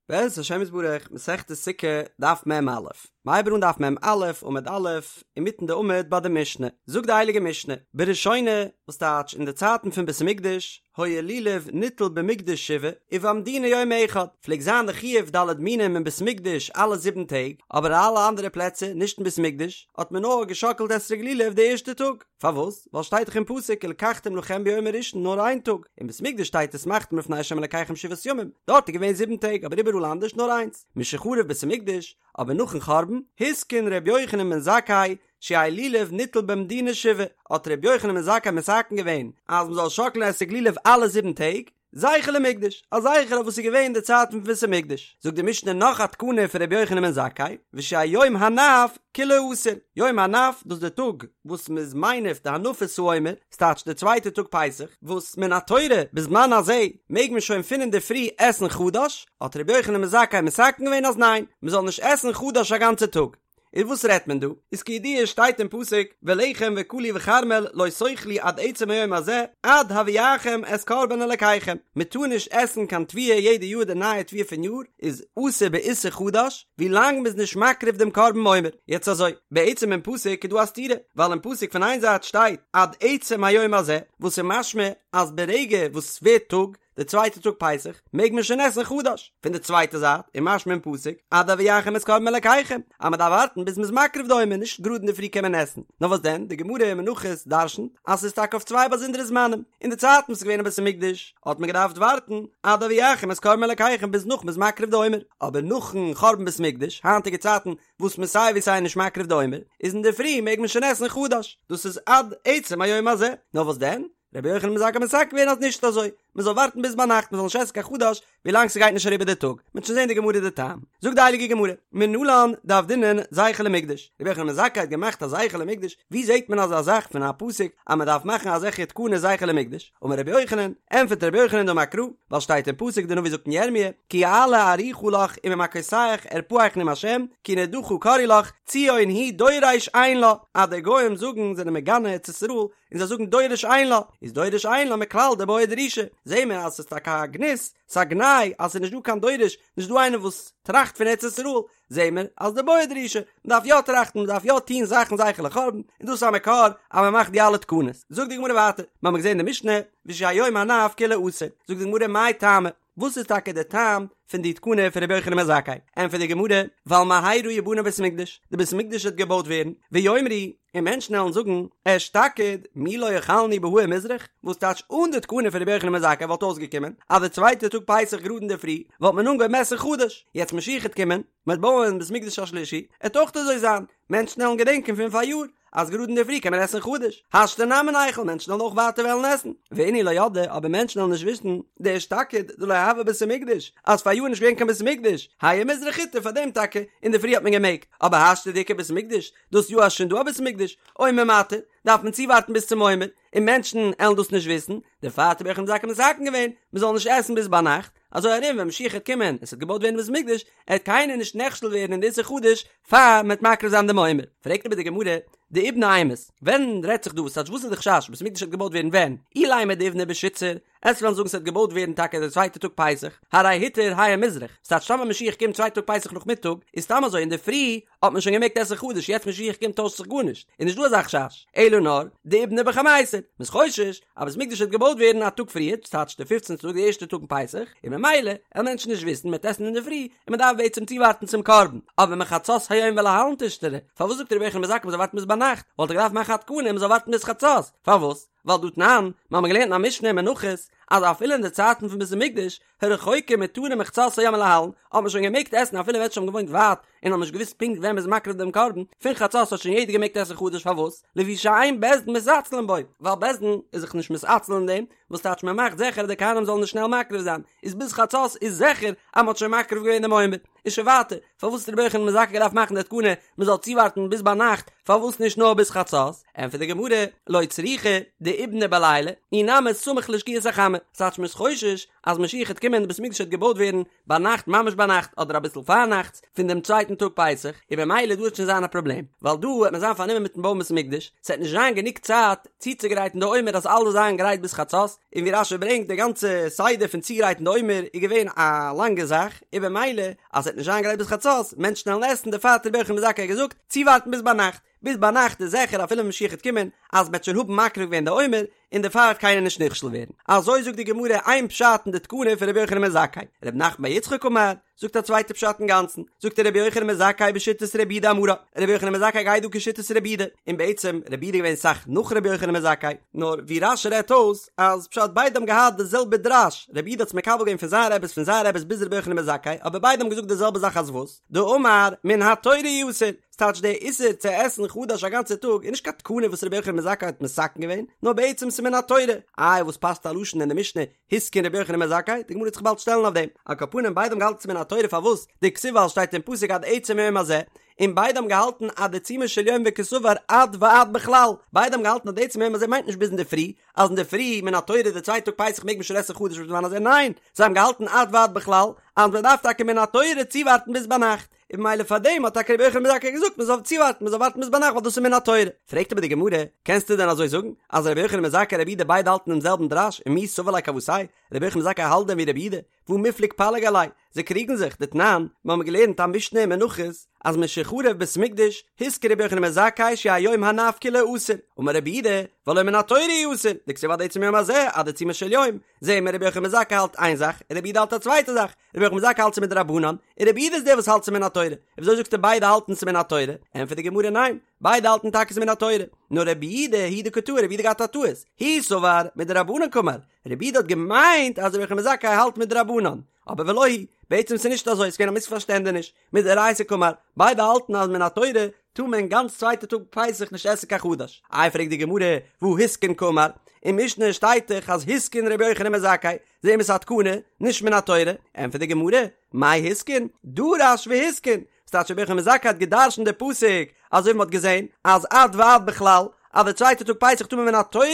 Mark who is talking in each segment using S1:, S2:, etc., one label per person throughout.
S1: בעזרת השם יתברך, מסכת סוכה, דף מ"א. מ'הייבט אן דף מ"א, עמוד א', אינמיטן די עמוד ביי די משנה. זאגט די הייליגע משנה, בראשונה, וואס טייטש אין די צייטן פון בית המקדש, היה לולב ניטל במקדש שבעה, ובמדינה יום אחד, פלעגט זיין די חיוב ד' מינים אין בית המקדש אלע זיבן טעג, אבער אין אלע אנדערע פלעצער, נישט אין בית המקדש, האט מען נאר געשאקלט אתרוג לולב די ערשטע טאג. פארוואס? ווייל שטייט דאך אין פסוק ולקחתם לכם ביום הראשון נאר איין טאג, אין בית מקדש שטייט ושמחתם לפני ה' אלקיכם שבעת ימים, דארט איז געווען זיבן טעג אבער איבעראל אנדערש נאר איינס, משחרב בית המקדש, אבער נאכן חרבן, התקין ר' יוחנן בן זכאי שיהא לולב ניטל במדינה שבעה, האט ר' יוחנן בן זכאי מתקן געווען אז מ'זאל שאקלען אתרוג לולב אלע זיבן טעג, זכר למקדש, א זכר אויף וואס איז געווען אין די צייטן פון בית המקדש, זאגט די משנה נאך א תקנה פון רבי יוחנן בן זכאי, ושיהא יום הנף כולו אסור, יום הנף דאס איז די טאג וואס מען איז מניף די הנפת העומר, ס'טייטש די צווייטע טאג פסח, וואס מן התורה בזמן הזה מעג מען שוין פון אינדערפרי עסן חדש, האט רבי יוחנן בן זכאי מתקן געווען אז ניין, מען זאל נישט עסן חדש א גאנצע טאג. איז וואס רעדט מען דא? איז כידוע שטייט אין פסוק ולחם וקלי וכרמל לא תאכלו עד עצם היום הזה עד הביאכם את קרבן אלקיכם, מען טאר נישט עסן קיין תבואה יעדע יאר די נייע תבואה פון יאר איז אסור באיסור חדש ווי לאנג מען איז נישט מקריב דעם קרבן עומר, יעצט אזוי, בעצם אין פסוק איז דא א סתירה, ווייל אין פסוק פון איין זייט שטייט עד עצם היום הזה וואס איז משמע אז ברגע וואס ס'ווערט טאג די צווייטע טאג פסח מעג מען שוין עסן חדש, פון די צווייטע זייט איז משמע אין פסוק עד הביאכם את קרבן אלקיכם אז מען דארף ווארטן ביז מען איז מקריב די עומר נישט גראד אינדערפרי קען מען עסן, נאר וואס דען די גמרא אין מנחות דרשנ'ט אז ס'איז טאקע אויף צוויי באזונדערע זמנים, אין די צייטן וואס איז געווען אין בית המקדש האט מען געדארפט ווארטן עד הביאכם את קרבן אלקיכם ביז נאך מען איז מקריב די עומר, אבער נאכן חורבן בית המקדש היינטיגע צייטן וואס מען סיי ווי סיי נישט מקריב די עומר איז אינדערפרי מעג מען שוין עסן חדש, דאס איז עד עצם היום הזה, נאר וואס דען רבי יוחנן בן זכאי האט מתקן געווען אז נישט אזוי, מען זאל ווארטן ביז ביינאכט מען זאל נישט עסן קיין חדש ווילאנג ס'גייט נישט אריבער די טאג, מ'וועט שוין זען די גמרא די טעם. זאגט די הייליגע גמרא, מנלן דעבדינן זכר למקדש, רבי יוחנן בן זכאי האט געמאכט א זכר למקדש, ווי זעט מען אזא זאך פון א פסוק אז מען דארף מאכן אזעלכע תקנות זכר למקדש, אמר רבי יוחנן, ענטפערט רבי יוחנן דאמר קרא, ווייל שטייט אין פסוק די נביא זאגט אין ירמיה, כי אעלה ארוכה לך וממכותיך ארפאך נאם השם, כי נדחה קראו לך, ציון היא דורש אין לה, אז די גוים זאגן זענען מגנה ארץ ישראל, און זיי זאגן דורש אין לה, איז דורש אין לה מכלל דבעיא דרישה, זעהן מיר אז ס'איז טאקע א גנות, ס'איז א גנאי אז ס'איז נישט דא קיין דורש, נישט דא איינער וואס טראכט פון ארץ ישראל, זעהן מיר אז דבעיא דרישה, מ'דארף יא טראכטן, מ'דארף יא טוהן זאכן זכר לחורבן, און דאס איז א מקור אז מ'מאכט די אלע תקנות. זאגט די גמרא ווייטער, מ'האמיר געזעהן אין די משנה, ושיהא יום הנף כולו אסור, זאגט די גמרא מאי טעמא, וואס איז טאקע די טעם פון די תקנה פון רבי יוחנן בן זכאי? ענטפערט די גמרא, ווייל מהרה יבנה בית המקדש, די בית המקדש וועט געבויט ווערן, ויאמרו, און מענטשן וועלן זאגן, אשתקד, מי לא אכלנו בהאיר מזרח, וואס טייטש אן די תקנה פון רבי יוחנן בן זכאי וואלט אויסגעקומען אז די צווייטע טאג פסח גראד אינדערפרי וואלט מען אנגעהויבן עסן חדש, יעצט משיח העט קומען, מען וועט בויען בית מקדש השלישי, עט אויך אזוי זיין, מענטשן וועלן געדענקען פון פאריאר, אז גראד אינדערפרי קען מען עסן חדש, השתא נמי ניכול, מענטשן וועלן אויך ווייטער וועלן עסן, ואינהו לא ידעי, אבער מענטשן וועלן נישט וויסן, דאשתקד דלא הוה בית המקדש, אז פאריאר איז נישט געווען קיין בית המקדש, האיר מזרח הותר פאר דעם טאקע אינדערפרי האט מען געמעגט, אבער השתא דאיכא בית המקדש, דאס יאר אז שוין דא א בית המקדש, עומר מתיר, דארף מען צואווארטן ביז צום עומר, און מענטשן עלן דאס נישט וויסן, דערפאר האט רבי יוחנן בן זכאי מתקן געווען, מען זאל נישט עסן ביז ביינאכט, אזוי ארום ווען משיח העט קומען און ס'וועט געבויט ווערן בית המקדש, עט קיינער נישט נכשל ווערן אין די איסור חדש פאר מ'עט מקריב זיין דעם עומר. פרעגט אבער די גמרא, דאיבני אימת, ווען רעדט זיך דא, וואס טייטש וואס איז די חשש, בית המקדש וועט געבויט ווערן ווען? אילימא דאיבני בשיתסר, עסט וועלן זאגן ס'וועט געבויט ווערן טאקע די צווייטע טאג פסח, הרי הותר האיר מזרח, ס'טייטש טאמער משיח קומט צווייטע טאג פסח נאכמיטאג, איז סתם אזוי אינדערפרי האט מען שוין געמעגט עסן חדש יעצט משיח קומט טוישט זיך גארנישט, איז נישט דא אזא חשש, אלא נאר דאיבני בחמיסר, מ'איז חושש אז בית מקדש וועט געבויט ווערן א טאג פריער, ס'טייטש די פופצנטע טאג די ערשטע טאג אין פסח, און ממילא וועלן מענטשן נישט וויסן מ'וועט עסן אינדערפרי, און מ'דארף בעצם צואווארטן צום קרבן, אבער מחצות היום ולהלן תשתרי, פארוואס זאגט רבי יוחנן בן זכאי מ'זאל ווארטן ביז ביינאכט, וואלט ער געדארפט מאכן א תקנה מ'זאל ווארטן ביז חצות, פארוואס? ווייל דהא תנן, מיר האבן געלערנט אין א משנה אין מנחות, אז אפילו אין די צייטן פון בית המקדש, הרחוקים מותרין מחצות היום ולהלן, האט מען שוין געמעגט עסן אפילו מענטשן האבן געוואוינט ווייט און האבן נישט געוואוסט פונקט ווען מ'איז מקריב דעם קרבן, פון חצות האט שוין יעדער געמעגט עסן חדש פארוואס? לפי שאין בית דין מתעצלין בו, ווייל בית דין איז זיך נישט מתעצל אין דעם, וואס טייטש מען מאכט זיכער אז די כהנים זאלן נישט שנעל מקריב זיין, איז ביז חצות איז זיכער אז מ'האט שוין מקריב געווען דעם עומר. איז שוין ווייטער, פארוואס האט רבי יוחנן בן זכאי געדארפט מאכן די תקנה מען זאל צואווארטן ביז ביינאכט, פארוואס נישט נאר ביז חצות? ענטפערט די גמרא, לא צריכא דאיבני בלילה, אי נמי סמוך לשקיעת החמה. טעמא, ס'טייטש מ'איז חושש אז משיח העט קומען און די בית המקדש העט געבויט ווערן ביינאכט ממש ביינאכט אדער אביסל פארנאכטס פון דעם צווייטן טאג פסח, און במילא דא העט שוין זיין א פראבלעם, ווייל דא העט מען זיין פארנומען מיטן בויען בית המקדש, ס'העט נישט זיין גענוג צייט צוצוגרייטן די עומר אז אלעס זאל זיין גרייט ביז חצות, און ווי רש"י ברענגט די גאנצע סדר פון צוגרייטן די עומר איז געווען א לאנגע זאך, און במילא אז ס'העט נישט זיין גרייט ביז חצות, מענטשן וועלן עסן, דערפאר האט רבי יוחנן בן זכאי געזאגט, צואווארטן ביז ביינאכט, ביז ביינאכט איז זיכער אפילו ווען משיח העט קומען אז מ'העט שוין האבן מקריב געווען די עומר, און דערפאר וועט קיינער נישט נכשל ווערן. אזוי זאגט די גמרא איין פשט אין די תקנה פון רבי יוחנן בן זכאי. רב נחמן בר יצחק אמר, זאגט א צווייטע פשט אינגאנצן, זאגט ער רבי יוחנן בן זכאי בשיטת רבי יהודה אמרה, רבי יוחנן בן זכאי גייט דא כשיטת רבי יהודה, און בעצם רבי יהודה איז געווען סאך נאך רבי יוחנן בן זכאי, נאר ווי רש"י רעדט אויס אז פשט ביידע האבן געהאט די זעלבע דרש, רבי יהודה האט עס מקבל געווען פון זיין רעבעס פון זיין רעבעס ביז רבי יוחנן בן זכאי, אבער ביידע האבן געזאגט די זעלבע זאך אז וואס? דאמר מן התורה הוא אסור, ס'טייטש דער איסור צו עסן חדש א גאנצע טאג איז נישט קיין תקנה וואס רבי יוחנן בן זכאי האט מתקן געווען, נאר בעצם ס'איז מן התורה. איי וואס פאסט א לשון אין די משנה התקין רבי יוחנן בן זכאי? די גמרא וועט זיך באלד שטעלן אויף דעם. על כל פנים ביידע האבן געהאלטן ס'איז מן התורה פארוואס? דכתיב ווייל שטייט אין פסוק עד עצם היום הזה, און ביידע האבן געהאלטן עד עיצומו של יום וקסבר עד ועד בכלל, ביידע האבן געהאלטן אז די עצם היום הזה מיינט נישט ביז אינדערפרי, אז אינדערפרי מן התורה די צווייטע טאג פסח מעג מען שוין עסן חדש בזמן הזה, ניין, זיי האבן געהאלטן עד ועד בכלל, אז מען דארף טאקע מן התורה צואווארטן ביז ביינאכט. און ממילא פאר דעם האט טאקע רבי יוחנן בן זכאי געזאגט מען זאל צואווארטן, מען זאל ווארטן ביז ביינאכט ווייל דאס איז מן התורה. פרעגט אבער די גמרא, קענסטו דען אזוי זאגן אז רבי יוחנן בן זכאי און רבי יהודה ביידע האלטן דעם זעלבן דרש, ומי סבר ליה כוותיה, רבי יוחנן בן זכאי האלט דען ווי רבי יהודה? והא מיפלג פליג עליה, זיי קריגן זיך, דתנן, מיר האבן געלערנט א משנה אין מנחות, אז משחרב בית המקדש, התקין רבי יוחנן בן זכאי שיהא יום הנף כולו אסור, אמר רבי יהודה, והלא מן התורה הוא אסור, דכתיב עד עצם היום הזה, עד עיצומו של יום, זעהן מיר רבי יוחנן בן זכאי האלט איין זאך, און רבי יהודה האלט א צווייטע זאך, רבי יוחנן בן זכאי האלט ס'איז מדרבנן, און רבי יהודה איז דער וואס האלט ס'איז מן התורה, און וויאזוי זאגסטו ביידע האלטן ס'איז מן התורה? ענטפערט די גמרא ניין, ביידע האלטן טאקע ס'איז מן התורה, נאר רבי יהודה הוא דקא טעי, רבי יהודה געהאט א טעות, הוא סבר מדרבנן קאמר, רבי יהודה האט געמיינט אז רבי יוחנן בן זכאי האלט מדרבנן, אבער ולא היא, בעצם ס'איז נישט אזוי, ס'איז געווען א מיספארשטענדעניש, מדאורייתא קאמר, ביידע האלטן אז מן התורה טאר מען גאנץ צווייטע טאג פסח נישט עסן קיין חדש. איי פרעגט די גמרא, והא התקין קאמר, אין משנה שטייט דאך אז התקין רבי יוחנן בן זכאי, זעהן מיר ס'איז א תקנה, נישט מן התורה, ענטפערט די גמרא, מאי התקין? דרש והתקין, ס'טייטש רבי יוחנן בן זכאי האט גע'דרש'נט די פסוק אזוי ווי מ'האט געזעהן אז עד ועד בכלל אז די צווייטע טאג פסח טאר מען מן התורה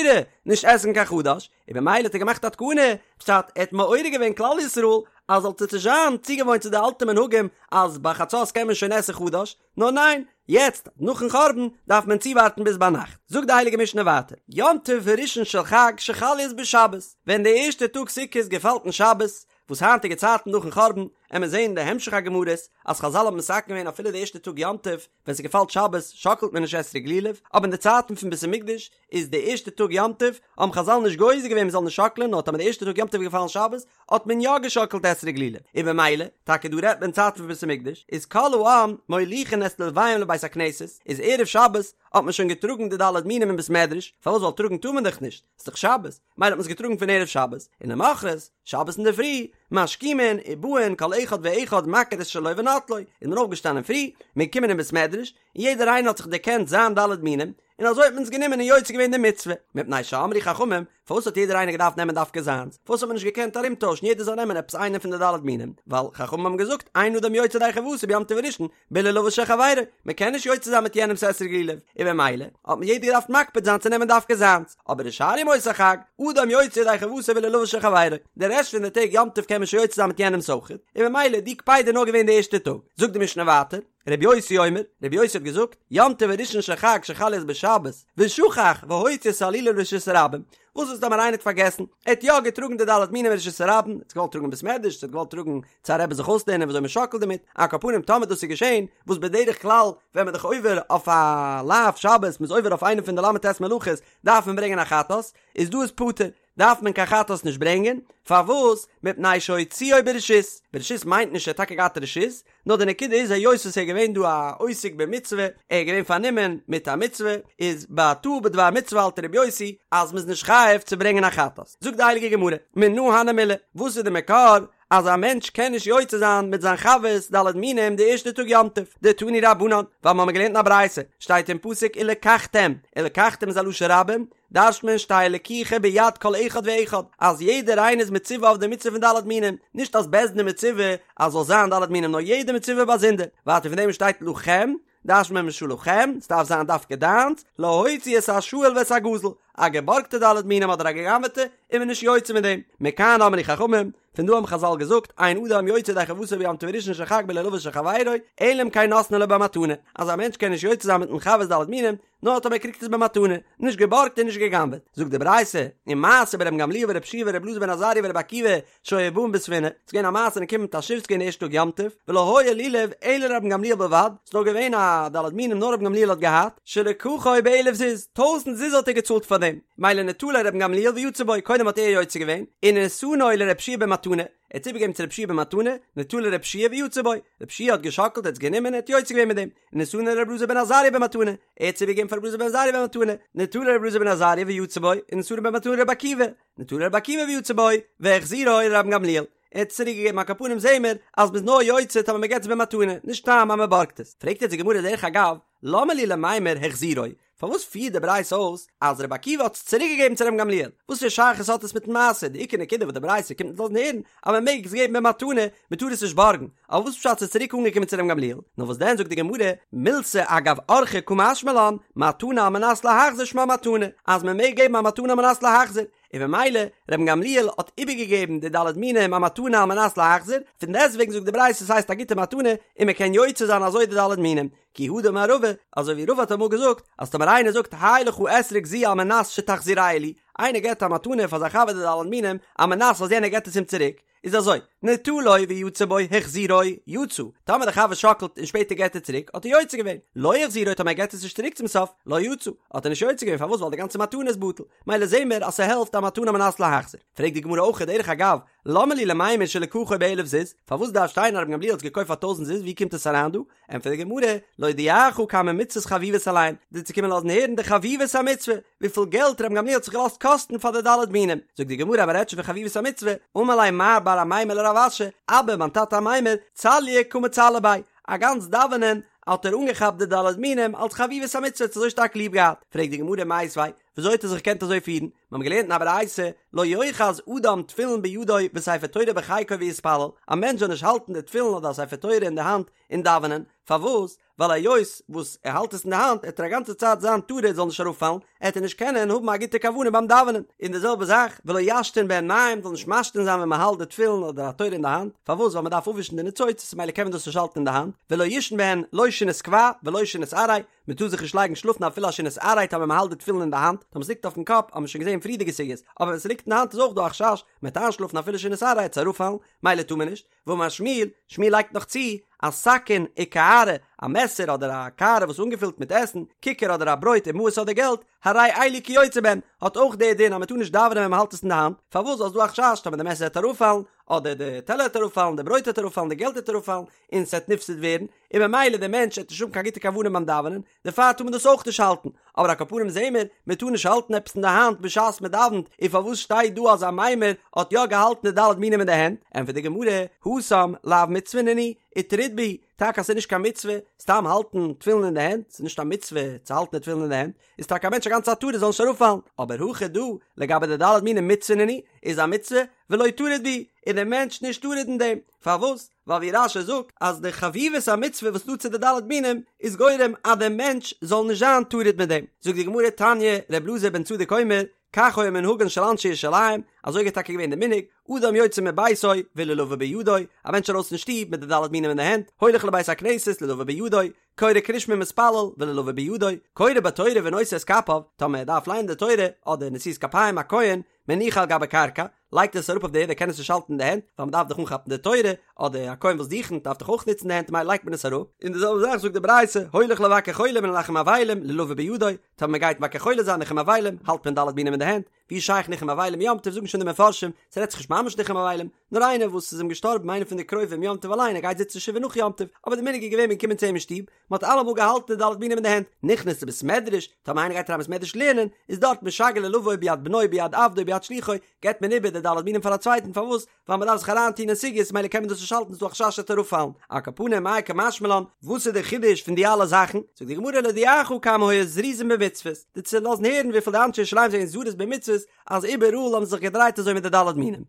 S1: נישט עסן קיין חדש, און במילא האט ער געמאכט א תקנה, פשט ער האט מעורר געווען כלל ישראל אז זאלט זיך נישט זיין צוגעוואוינט צו די אלטע מנהגים אז ביי חצות קען מען שוין עסן חדש, נאר ניין, יעצט נאכן חורבן דארף מען צואווארטן ביז ביינאכט. זאגט די הייליגע משנה ווייטער, יום טוב הראשון של חג שחל להיות בשבת, ווען די ערשטע טאג סוכות געפאלט אין שבת, וואס היינטיגע צייטן נאכן חורבן, עמיר זעהן אין די המשך הגמרות אז חזל האבן מתקן געווען אפילו די ערשטע טאג יום טוב ווען ס'געפאלט שבת שאקלט מען נישט אתרוג לולב, אבער אין די צייטן פון בית המקדש איז די ערשטע טאג יום טוב האבן חזל נישט גוזר געווען מ'זאל נישט שאקלען נאר טאמער די ערשטע טאג יום טוב איז געפאלן שבת האט מען יא געשאקלט אתרוג לולב, און במילא, טאקע דא רעדט מען צייטן פון בית המקדש, איז כל העם מוליכין את לולביהם לבית הכנסת, איז ערב שבת האט מען שוין געטראגן די ד' מינים אין בית מדרש, פארוואס ווייל טראגן טאר מען דאך נישט, ס'איז דאך שבת, מילא האט מען עס געטראגן פון ערב שבת, און למחרת, שבת אינדערפרי, משכימין ובאין כל אחד ואחד מכיר את שלו ונוטלו, איז מען אויפגעשטאנען פרי, מען איז געקומען אין בית מדרש, און יעדער איינער האט זיך דערקענט זיין ד' מינים, און אזוי האט מען עס גענומען און יוצא געווען די מצוה, מפני שאמרו חכמים, פארוואס האט יעדער איינער געדארפט נעמען דווקא זיינס? פארוואס האט מען נישט געקענט ארומטוישן יעדער זאל נעמען עפעס איינע פון די ד' מינים? ווייל חכמים האבן געזאגט אין אדם יוצא ידי חובתו ביום טוב הראשון בלולבו של חברו, מען קען נישט יוצא זיין מיט יענעמ'ס אתרוג לולב, און במילא האט מען יעדער געדארפט מקפיד זיין צו נעמען דווקא זיינס, אבער ושאר ימות החג, אדם יוצא ידי חובתו בלולבו של חברו, די רעשט פון די טעג יום טוב קען מען שוין יוצא זיין מיט יענעמ'ס אויכעט, און במילא די קפידה איז נאר געווען די ערשטע טאג. זאגט די משנה ווייטער. רבי יוסי אומר, רבי יוסי האט געזאגט, יום טוב הראשון של חג שחל להיות בשבת, ושכח והוציא את הלולב לרשות הרבים, וואס איז טאמער איינער האט פארגעסן, ער האט יא געטראגן די ד' מינים לרשות הרבים, ער האט געוואלט טראגן אין בית מדרש, ער האט געוואלט טראגן צו א רבי זיך אויסלערנען ווי אזוי מען שאקלט דערמיט, על כל פנים טאמער דאס איז געשען, וואס בדרך כלל ווען מען איז דאך עובר אויף א לאו שבת, מען איז עובר אויף איינע פון די ל"ט מלאכות, דארף מען ברענגען א חטאת, איז דא איז פטור. דארף מען קיין חטאת נישט ברענגען, פארוואס? מפני שהוציאו ברשות, ברשות מיינט נישט ער האט טאקע געהאט רשות, נאר די נקודה איז היות עס איז געווען דא א עוסק במצוה, ער איז געווען פארנומען מיט א מצוה, איז ביי טעה בדבר מצוה האלט רבי יוסי אז מ'איז נישט חייב צו ברענגען א חטאת. זאגט די הייליגע גמרא, מנא הני מילי, וואס איז די מקור אז א מענטש קען נישט יוצא זיין מיט זיין חבר'ס ד' מינים די ערשטע טאג יום טוב, דתנו רבנן, ווייל מ'האמיר געלערנט אין א ברייתא, שטייט אין פסוק ולקחתם, ולקחתם איז א לשון רבים, דרש'ט מען שתהא לקיחה ביד כל אחד ואחד, אז יעדער איינער איז מצווה אויף די מצוה פון ד' מינים, נישט אז בית דין איז מצווה אז זאל זיין ד' מינים נאר יעדער מצווה באזונדער, ווייטער פון דעם שטייט לכם, דרש'נט מען משלכם, ס'דארף זיין דווקא דיינס, להוציא את השאול ואת הגזול, א געבארגטע ד' מינים אדער א גע'גנב'עטע, איז מען נישט יוצא מיט דעם, מכאן אמרו חכמים, פון דא האבן חזל געזאגט, אין אדם יוצא ידי חובתו ביום טוב הראשון של חג בלולבו של חברו, אלא אם כן נתנו לו במתנה, אז א מענטש קען נישט יוצא זיין מיטן חבר'ס ד' מינים, נאר טאמער ער קריגט עס במתנה, נישט געבארגט און נישט גע'גנב'עט. זאגט די ברייתא, ומעשה ברבן גמליאל ורבי יהושע ורבי אלעזר בן עזריה ורבי עקיבא שהיו באין בספינה, ס'איז געווען א מעשה מ'איז געקומען מיט א שיף ס'איז געווען די ערשטע טאג יום טוב, ולא היה לולב אלא לרבן גמליאל בלבד, ס'איז נאר געווען א ד' מינים נאר רבן גמליאל האט געהאט, שלקחו באלף זוז, טויזענט זוז האט ער געצאלט פאר דעם, מילא נטלו רבן גמליאל ויצא בו, קודם האט ער יוצא געווען, ונתנו לרבי יהושע במתנה, ער האט עס איבערגעגעבן צו רבי יהושע במתנה, נטלו רבי יהושע ויצא בו, רבי יהושע האט געשאקלט ער האט עס גענומען ער האט יוצא געווען מיט דעם, ונתנו לרבי אלעזר בן עזריה במתנה, ער האט עס איבערגעגעבן פאר רבי אלעזר בן עזריה במתנה, נטלו רבי אלעזר בן עזריה ויצא בו, ונתנו במתנה לרבי עקיבא, נטלו רבי עקיבא ויצא בו, והחזירו לרבן גמליאל, ער האט עס צוריק געגעבן על כל פנים זעהן מיר אז מ'איז נאר יוצא טאמער מ'געט עס במתנה, נישט סתם אז מ'בארגט עס. פרעגט יעצט די גמרא דרך אגב, למה לי למימר החזירו, פארוואס פירט די ברייתא אויס אז רבי עקיבא האט עס צוריק געגעבן צו רבן גמליאל? וואס פאר שייכות האט עס מיטן מעשה? די עיקר נקודה וואס די ברייתא קומט אונז לאזן הערן אז מען מעג עס געבן במתנה, מען טאר עס נישט בארגן, אבער וואס פשט ס'איז צוריק אנגעקומען צו רבן גמליאל? נאר וואס דען זאגט די גמרא, מילתא אגב אורחיה קא משמע לן, מתנה על מנת להחזיר שמה מתנה, אז מען מעג געבן א מתנה על מנת להחזיר, און במילא רבן גמליאל האט איבערגעגעבן די ד' מינים א מתנה על מנת להחזיר, פון דעסטוועגן זאגט די ברייתא ס'הייסט א גוטע מתנה און מען קען יוצא זיין אזוי די ד' מינים, כי הא דאמר רבא, אזוי ווי רבא האט אמאל געזאגט, אז טאמער איינער זאגט הא לך אתרוג זו על מנת שתחזירהו לי, איינער געבט א מתנה פאר זיין חבר די ד' מינים, על מנת אז יענער געבט עס אים צוריק, איז אזוי, נטלו ויצא בו החזירו, יצא, טאמער דער חבר שאקלט און שפעטער געבט ער צוריק, האט ער יוצא געווען, לא החזירו טאמער ער געבט עס נישט צוריק צום סוף, לא יצא, האט ער נישט יוצא געווען, פארוואס ווייל די גאנצע מתנה איז בטל, מילא זעהן מיר אז ס'העלפט א מתנה על מנת להחזיר. פרעגט די גמרא אויך דרך אגב, למה לי למימר שלקחו באלף זוז, פארוואס דארף שטיין אז רבן גמליאל האט עס געקויפט פאר טויזענט זוז, ווי קומט עס אריין דא? ענטפערט די גמרא, להודיעך כמה מצוות חביבות עליהן, דיר צו קומען לאזן הערן די חביבות המצוה, וויפיל געלט רבן גמליאל האט זיך געלאזט קאסטן פאר די ד' מינים. זאגט די גמרא, מ'רעדט שוין פון חביבות המצוה, אמר ליה מר בר אמימר לרב אשי, אבא מיין טאטע אמימר, צלויי קא מצלי ביה, א גאנץ דאווענען האט ער אנגעכאפט די ד' מינים אלס חביבות המצוה, האט עס אזוי שטארק ליב געהאט. פרעגט די גמרא, מיתיבי, וויאזוי האט ער זיך געקענט אזוי פירן? מיר האבן געלערנט אין א ברייתא, לא יאחז אדם תפילין בידו וספר תורה בחיקו ויתפלל, א מענטש זאל נישט האלטן די תפילין אדער א ספר תורה אין די האנט און דאווענען, פארוואס? ווייל היות וואס ער האלט עס אין די האנט עט ער א גאנצע צייט זיין טרוד זאל נישט אראפפאלן, עט ער נישט קענען האבן א גוטע כוונה ביים דאווענען, און די זעלבע זאך ולא ישתין בהן מים זאל נישט משתין זיין ווען מען האלט די תפילין אדער א תורה אין די האנט, פארוואס? ווייל מען דארף אפווישן די ניצוצות ממילא קען מען דאס נישט האלטן אין די האנט, ולא יישן בהן לא שינת קבע ולא שינת עראי, מען טאר זיך נישט לייגן שלאפן אפילו א שינת עראי טאמער מען האלט די תפילין אין די האנט, טאמער ס'ליגט אויפן קאפ האט מען שוין געזען פריערדיגע סוגיות, אבער ווען ס'ליגט אין די האנט איז אויך דא א חשש מען וועט איינשלאפן אפילו שינת עראי עט עס אראפפאלן, מילא טאר מען נישט, ואמר שמואל, שמואל לייגט נאך צו, אז סכין וקערה, א מעסער אדער א קערה וואס איז אנגעפילט מיט עסן, כיכר אדער א ברויט ומעות אדער געלט, הרי אלו כיוצא בהן, האט אויך די דין אז מען טאר נישט דאווענען ווען מען האלט עס אין די האנט, פארוואס ווייל ס'איז דא א חשש טאמער די מעסער וועט אראפפאלן, אדער די טעלער וועט אראפפאלן, די ברויט וועט אראפפאלן, די געלט וועט אראפפאלן, און ס'וועט נפסד ווערן, און ממילא דער מענטש וועט נישט האבן קיין גוטע כוונה ביים דאווענען, דערפאר טאר מען דאס אויך נישט האלטן, אבער על כל פנים זעהן מיר, מען טאר נישט האלטן עפעס אין די האנט בשעת מען דאווענט, און פארוואס שטייט דא אז אמימר האט יא געהאלטן די ד' מינים אין די הענט? ענטפערט די גמרא, התם לאו מצוה נינהו, וטריד בהו, טאקע אז ס'איז נישט קיין מצוה סתם האלטן תפילין אין די הענט, ס'איז נישט א מצוה צו האלטן די תפילין אין די הענט, איז טאקע א מענטש א גאנצע צייט טרוד זאל נישט אראפפאלן, אבער הכא דא, לגבי די ד' מינים מצוה נינהו, איז א מצוה, ולא טריד בהו, איז דער מענטש נישט טרוד אין דעם, פארוואס? ווייל ווי רש"י זאגט אז די חביבות המצוה וואס איז דא צו די ד' מינים איז גורם אז דער מענטש זאל נישט זיין טרוד מיט דעם. זאגט די גמרא תניא, ר' אלעזר בן צדוק אומר, כך היה מנהגן של אנשי ירושלים, אזוי איז טאקע געווען די מנהג, אדם יוצא מביתו ולולבו בידו, א מענטש ארויס פון שטוב מיט די ד' מינים אין די הענט, הולך לבית הכנסת לולבו בידו, קורא קריאת שמע ומתפלל ולולבו בידו, קורא בתורה ונושא את כפיו, טאמער ער דארף ליינען די תורה אדער נשיאת כפיים א כהן, מניחו על גבי קרקע, לייגט עס אראפ אויף די ערד ער קען עס נישט האלטן אין די הענט, ווייל מען דארף דאך אנכאפן די תורה, אדער א כהן וואס דוכנ'ט דארף דאך אויך נוצן די הענט ממילא לייגט מען עס אראפ, און די זעלבע זאך זאגט די ברייתא, הולך לבקר חולים ולנחם אבלים, לולבו בידו, טאמער מען גייט מבקר חולה זיין ניחום אבלים, האלט מען ד' מינים אין די הענט, ווי שייך ניחום אבלים יום טוב זאגן שוין די מפרשים, ס'רעדט זיך נישט ממש ניחום אבלים, נאר איינער וואס איז אים געשטארבן איינער פון די קרובים יום טוב אליין ער גייט זיצן שבעה נאך יום טוב, אבער די מנהג איז געווען מען קומען צו אים אין שטוב, מען האט אלעמאל געהאלטן די ד' מינים אין די הענט, נכנס לבית מדרש, טאמער איינער גייט אריין בית מדרש לערנען, איז דארט משגר לולבו ביד בנו ביד עבדו ביד שלוחו, געבט מען איבער די ד' מינים פאר א צווייטן, פארוואס? ווייל מען דארף זיך אריינטון אין סוגיות מילא קען מען דאס נישט האלטן ס'איז דא א חשש ס'וועט אראפפאלן, על כל פנים מאי קא משמע לן, וואס איז די חידוש פון די אלע זאכן? זאגט די גמרא להודיעך כמה היו זריזין במצוות, דיר צו לאזן הערן וויפיל די אנשי ירושלים זענען זריז במצוות, אז איבעראל האבן זיי זיך געדרייט אזוי מיט די ד' מינים.